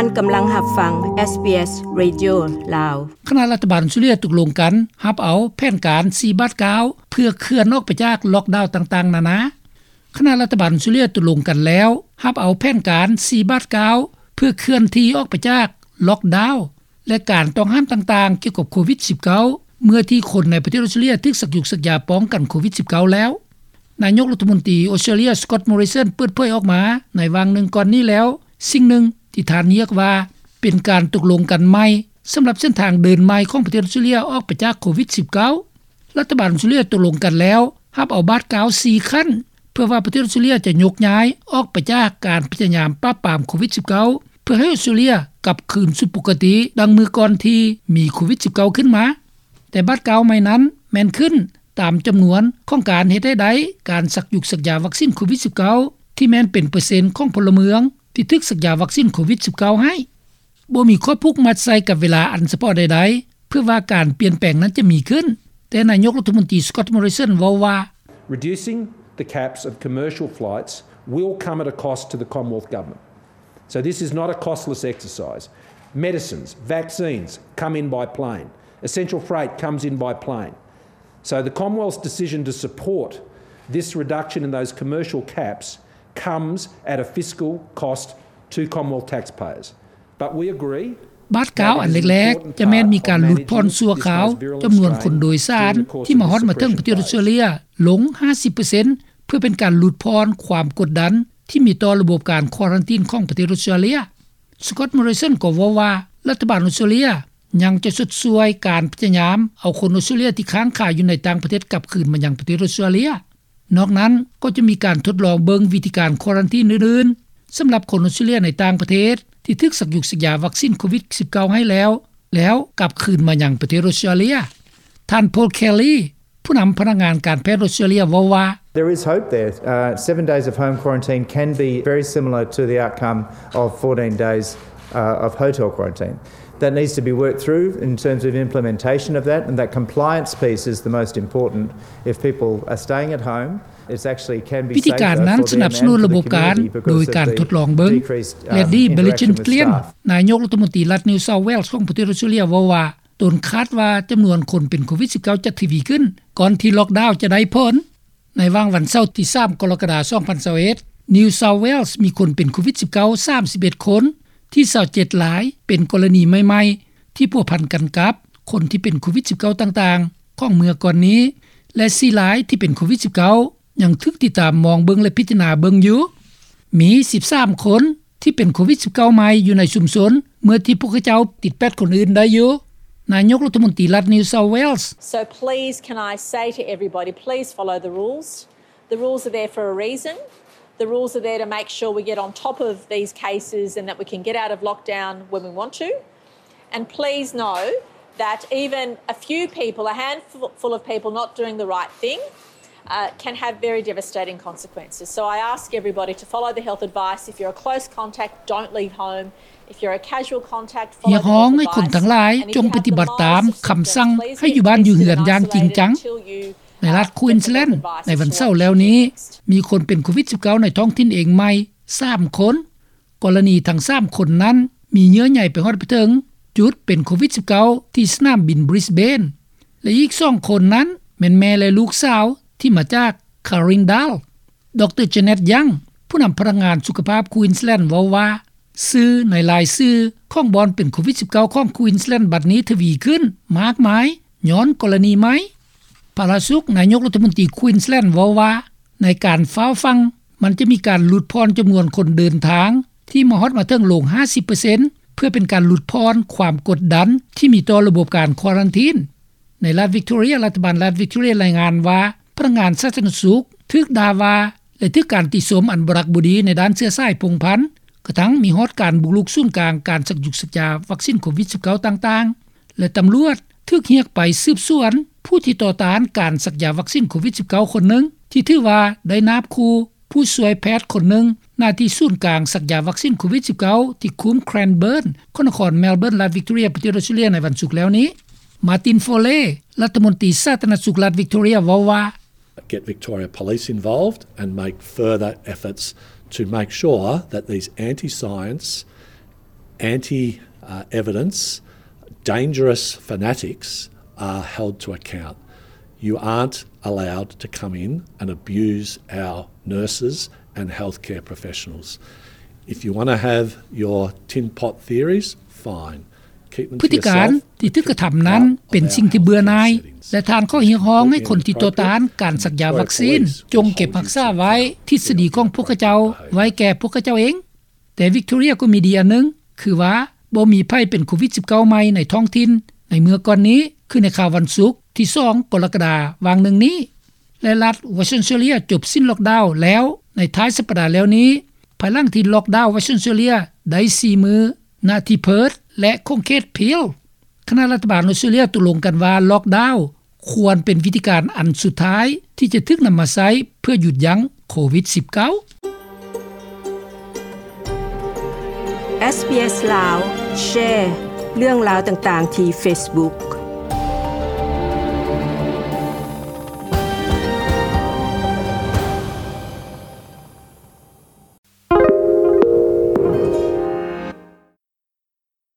ທ່ານກຳລັງຮັບຟັງ ເອສບີເອສ ເຣດິໂອ ລາວ. ຄະນະລັດຖະບານອົດສະຕຣາເລຍຕົກລົງກັນຮັບເອົາແຜນການສີ່ບາດກ້າວ ເພື່ອເຄື່ອນອອກໄປຈາກລັອກດາວຕ່າງໆນານາ. ຄະນະລັດຖະບານອົດສະຕຣາເລຍຕົກລົງກັນແລ້ວ ຮັບເອົາແຜນການສີ່ບາດກ້າວ ເພື່ອເຄື່ອນທີ່ອອກໄປຈາກລັອກດາວ ແລະ ການຕ້ອງຫ້າມຕ່າງໆກ່ຽວກັບໂຄວິດສິບເກົ້າ ເມື່ອທີ່ຄົນໃນປະເທດອົດສະຕຣາເລຍຖືກສັກຢຸກສັກຢາປ້ອງກັນໂຄວິດສິບເກົ້າແລ້ວ. ນາຍົກລັດຖະມົນຕີອົດສະຕຣາເລຍ ສະກອດ ມໍຣິສັນ ເປີດເຜີຍອອກມາໃນຫວ່າງໜຶ່ງກ່ອນນີ້ແລ້ວ, ສິ່ງໜຶ່ງທີ່ທ່ານຮຽກວ່າເປັນການຕົກລົງກັນໃໝ່ ສຳລັບເສັ້ນທາງເດີນໃໝ່ຂອງປະເທດອົດສະຕຣາເລຍອອກໄປຈາກໂຄວິດສິບເກົ້າ. ລັດຖະບານອົດສະຕຣາເລຍຕົກລົງກັນແລ້ວ ຮັບເອົາບາດກ້າວສີ່ຂັ້ນ ເພື່ອວ່າປະເທດອົດສະຕຣາເລຍຈະຍົກຍ້າຍອອກໄປຈາກການພະຍາຍາມປາບປາມໂຄວິດສິບເກົ້າ ເພື່ອໃຫ້ອົດສະຕຣາເລຍກັບຄືນສູ່ປົກກະຕິດັ່ງເມື່ອກ່ອນທີ່ມີໂຄວິດສິບເກົ້າຂຶ້ນມາ. ແຕ່ບາດກ້າວໃໝ່ນັ້ນແມ່ນຂຶ້ນຕາມຈຳນວນຂອງການເຮັດໃຫ້ໄດ້ການສັກຢຸກສັກຢາວັກຊີນໂຄວິດສິບເກົ້າ ທີ່ແມ່ນເປັນເປີເຊັນຂອງພົນລະເມືອງທີ່ຖືກສັກຢາວັກຊີນໂຄວິດສິບເກົ້າໃຫ້. ບໍ່ມີຂໍ້ຜູກມັດໃສ່ກັບເວລາອັນສະເພາະໃດໆ ເພື່ອວ່າການປ່ຽນແປງນັ້ນຈະມີຂຶ້ນ, ແຕ່ນາຍົກລັດຖະມົນຕີ ສະກອດ ມໍຣິສັນ ເວົ້າວ່າ Reducing the caps of commercial flights will come at a cost to the Commonwealth Government. So this is not a costless exercise. Medicines, vaccines come in by plane. Essential freight comes in by plane. So the Commonwealth's decision to support this reduction in those commercial caps comes at a fiscal cost to Commonwealth taxpayers. But we agree ບາດກ້າວອັນແລກໆ ຈະແມ່ນມີການຫຼຸດຜ່ອນຊົ່ວຄາວຈຳນວນຄົນໂດຍສານທີ່ມາຮອດມາເຖິງປະເທດອົດສະຕຣາເລຍລົງຫ້າສິບເປີເຊັນ ເພື່ອເປັນການຫຼຸດຜ່ອນຄວາມກົດດັນທີ່ມີຕໍ່ລະບົບການຄວາຣັນທີນຂອງປະເທດອົດສະຕຣາເລຍ. ສະກອດ ມໍຣິສັນ ກໍເວົ້າວ່າ ລັດຖະບານອົດສະຕຣາເລຍຍັງຈະຊົດຊ່ວຍການພະຍາຍາມເອົາຄົນອົດສະຕຣາເລຍທີ່ຄ້າງຄາຢູ່ໃນຕ່າງປະເທດກັບຄືນມາຍັງປະເທດອົດສະຕຣາເລຍ. ນອກນັ້ນກໍຈະມີການທົດລອງເບິ່ງວິທີການຄວາຣັນທີນອື່ນໆ ສຳລັບຄົນອົດສະຕຣາເລຍໃນຕ່າງປະເທດທີ່ຖືກສັກຢຸກສັກຢາວັກຊີນໂຄວິດສິບເກົ້າໃຫ້ແລ້ວ ແລ້ວກັບຄືນມາຍັງປະເທດອົດສະຕຣາເລຍ. ທ່ານ ໂພລ ແຄລີ ຜູ້ນຳພະນັກງານການແພດອົດສະຕຣາເລຍເວົ້າວ່າ There is hope there. Uh, seven days of home quarantine can be very similar to the outcome of fourteen days, uh, of hotel quarantine. That needs to be worked through in terms of implementation of that, and that compliance piece is the most important. If people are staying at home, it's actually can be safer for them and for the community because of the decreased, um, interaction with staff. ວິທີການນັ້ນສະໜັບສະໜູນລະບົບການໂດຍການທົດລອງເບິ່ງ ແລດດີ້ ເບລິເຈນເກລຽນ ນາຍົກລັດຖະມົນຕີລັດ New South Wales ຂອງປະເທດອົດສະຕຣາເລຍເວົ້າວ່າ ຕົນຄາດວ່າຈຳນວນຄົນເປັນໂຄວິດສິບເກົ້າຈະທະວີຂຶ້ນ ກ່ອນທີ່ລັອກດາວຈະໄດ້ຜົນ. ໃນຫວ່າງວັນເສົາທີສາມ ກໍລະກະດາ ສອງພັນຊາວເອັດ New South Wales ມີຄົນເປັນໂຄວິດສິບເກົ້າ ສາມສິບເອັດຄົນ, ທີ່ຊາວເຈັດລາຍເປັນກໍລະນີໃໝ່ໆ ທີ່ພົວພັນກັນກັບຄົນທີ່ເປັນໂຄວິດສິບເກົ້າຕ່າງໆຂອງເມື່ອກ່ອນນີ້ ແລະ ສີ່ລາຍທີ່ເປັນໂຄວິດສິບເກົ້າຍັງຖືກຕິດຕາມມອງເບິ່ງ ແລະ ພິຈາລະນາເບິ່ງຢູ່. ມີສິບສາມຄົນ ທີ່ເປັນໂຄວິດສິບເກົ້າໃໝ່ຢູ່ໃນຊຸມຊົນ ເມື່ອທີ່ພວກເຂົາເຈົ້າຕິດແປດຄົນອື່ນໄດ້ຢູ່. ນາຍົກລັດຖະມົນຕີລັດ New South Wales. So please, can I say to everybody, please follow the rules. The rules are there for a reason. The rules are there to make sure we get on top of these cases and that we can get out of lockdown when we want to. And please know that even a few people, a handful of people not doing the right thing, uh, can have very devastating consequences. So I ask everybody to follow the health advice. If you're a close contact, don't leave home. If you're a casual contact, follow the health advice. ຮຽກຮ້ອງໃຫ້ຄົນທັງຫຼາຍຈົ່ງປະຕິບັດຕາມຄຳສັ່ງໃຫ້ຢູ່ບ້ານຢູ່ເຮືອນຢ່າງຈິງຈັງ. ໃນລັດ Queensland ໃນວັນເສົາແລ້ວນີ້ ມີຄົນເປັນໂຄວິດສິບເກົ້າໃນທ້ອງຖິ່ນເອງໃໝ່ສາມຄົນ. ກໍລະນີທັງສາມຄົນນັ້ນ ມີເຍື່ອໃຍໄປຮອດໄປເຖິງຈຸດເປັນໂຄວິດສິບເກົ້າ ທີ່ສະໜາມບິນ Brisbane ແລະ ອີກສອງຄົນນັ້ນແມ່ນແມ່ ແລະ ລູກສາວທີ່ມາຈາກ Carindale. ດຣ Janet Young ຜູ້ນຳພະນັກງານສຸຂະພາບ Queensland ເວົ້າວ່າ ສື່ໃນຫຼາຍສື່ຂອງບ່ອນເປັນໂຄວິດສິບເກົ້າຂອງ Queensland ບັດນີ້ທະວີຂຶ້ນມາກມາຍຍ້ອນກໍລະນີໃໝ່. ພະລາສຸກ ນາຍົກລັດຖະມົນຕີ Queensland ເວົ້າວ່າ ໃນການຟ້າວຟັ່ງ ມັນຈະມີການຫຼຸດຜ່ອນຈຳນວນຄົນເດີນທາງທີ່ມາຮອດມາເຖິງລົງຫ້າສິບເປີເຊັນ ເພື່ອເປັນການຫຼຸດຜ່ອນຄວາມກົດດັນທີ່ມີຕໍ່ລະບົບການຄວາຣັນທີນ. ໃນລັດ Victoria ລັດຖະບານລັດ Victoria ລາຍງານວ່າ ພະນັກງານສາທາລະນະສຸກຖືກດ່າວ່າ ແລະ ຖືກການຕິຊົມອັນບໍ່ຮັກບໍ່ດີໃນດ້ານເຊື້ອສາຍພົງພັນ ກະທັ່ງມີຮອດການບຸກລຸກສູນກາງການສັກຢຸກສັກຢາວັກຊີນໂຄວິດສິບເກົ້າຕ່າງໆ ແລະ ຕຳຫຼວດຖືກຮຽກໄປສືບສວນຜູ້ທີ່ຕໍ່ຕ້ານການສັກຢາວັກຊີນໂຄວິດສິບເກົ້າຄົນໜຶ່ງ ທີ່ຖືວ່າໄດ້ນາບຂູ່ຜູ້ຊ່ວຍແພດຄົນໜຶ່ງ ໜ້າທີ່ສູນກາງສັກຢາວັກຊີນໂຄວິດສິບເກົ້າ ທີ່ຄຸ້ມ Cranbourne ຂອງນະຄອນ Melbourne ລັດ Victoria ປະເທດ Australia ໃນວັນສຸກແລ້ວນີ້. Martin Foley ລັດຖະມົນຕີສາທາລະນະສຸກລັດ Victoria ເວົ້າວ່າ Get Victoria Police involved and make further efforts to make sure that these anti-science anti evidence, dangerous fanatics are held to account. You aren't allowed to come in and abuse our nurses and healthcare professionals. If you want to have your tin pot theories, fine. ພຶດຕິການທີ່ຖືກກະທຳນັ້ນເປັນສິ່ງທີ່ເບື່ອໜ່າຍ ແລະ ທ່ານຂໍຮຽກຮ້ອງໃຫ້ຄົນທີ່ຕໍ່ຕ້ານການສັກຢາວັກຊີນ ຈົ່ງເກັບຮັກສາໄວ້ທິດສະດີຂອງພວກຂະເຈົ້າໄວ້ແກ່ພວກຂະເຈົ້າເອງ. ແຕ່ Victoria ກໍມີດີອັນໜຶ່ງ ຄືວ່າບໍ່ມີໃຜເປັນໂຄວິດ-19 ໃໝ່ໃນທ້ອງຖິ່ນໃນເມື່ອກ່ອນນີ້ ຄືໃນຄາວວັນສຸກທີສອງກໍລະກະດາຫວ່າງໜຶ່ງນີ້ ແລະ ລັດ Western Australia ຈົບສິ້ນລ໊ອກດາວແລ້ວໃນທ້າຍສັບປະດາແລ້ວນີ້ ພາຍຫຼັງທີ່ລ໊ອກດາວ Western Australia ໄດ້ສີ່ມື້ ນະທີ່ Perth ແລະ ຂົງເຂດ Peel. ຄະນະລັດຖະບານອອສເຕຣເລຍຕົກລົງກັນວ່າລ໊ອກດາວຄວນເປັນວິທີການອັນສຸດທ້າຍທີ່ຈະຖືກນຳມາໃຊ້ເພື່ອຢຸດຢັ້ງໂຄວິດ-19. SBS ລາວ ແຊ ເລື່ອງລາວຕ່າງໆທີ່ Facebook.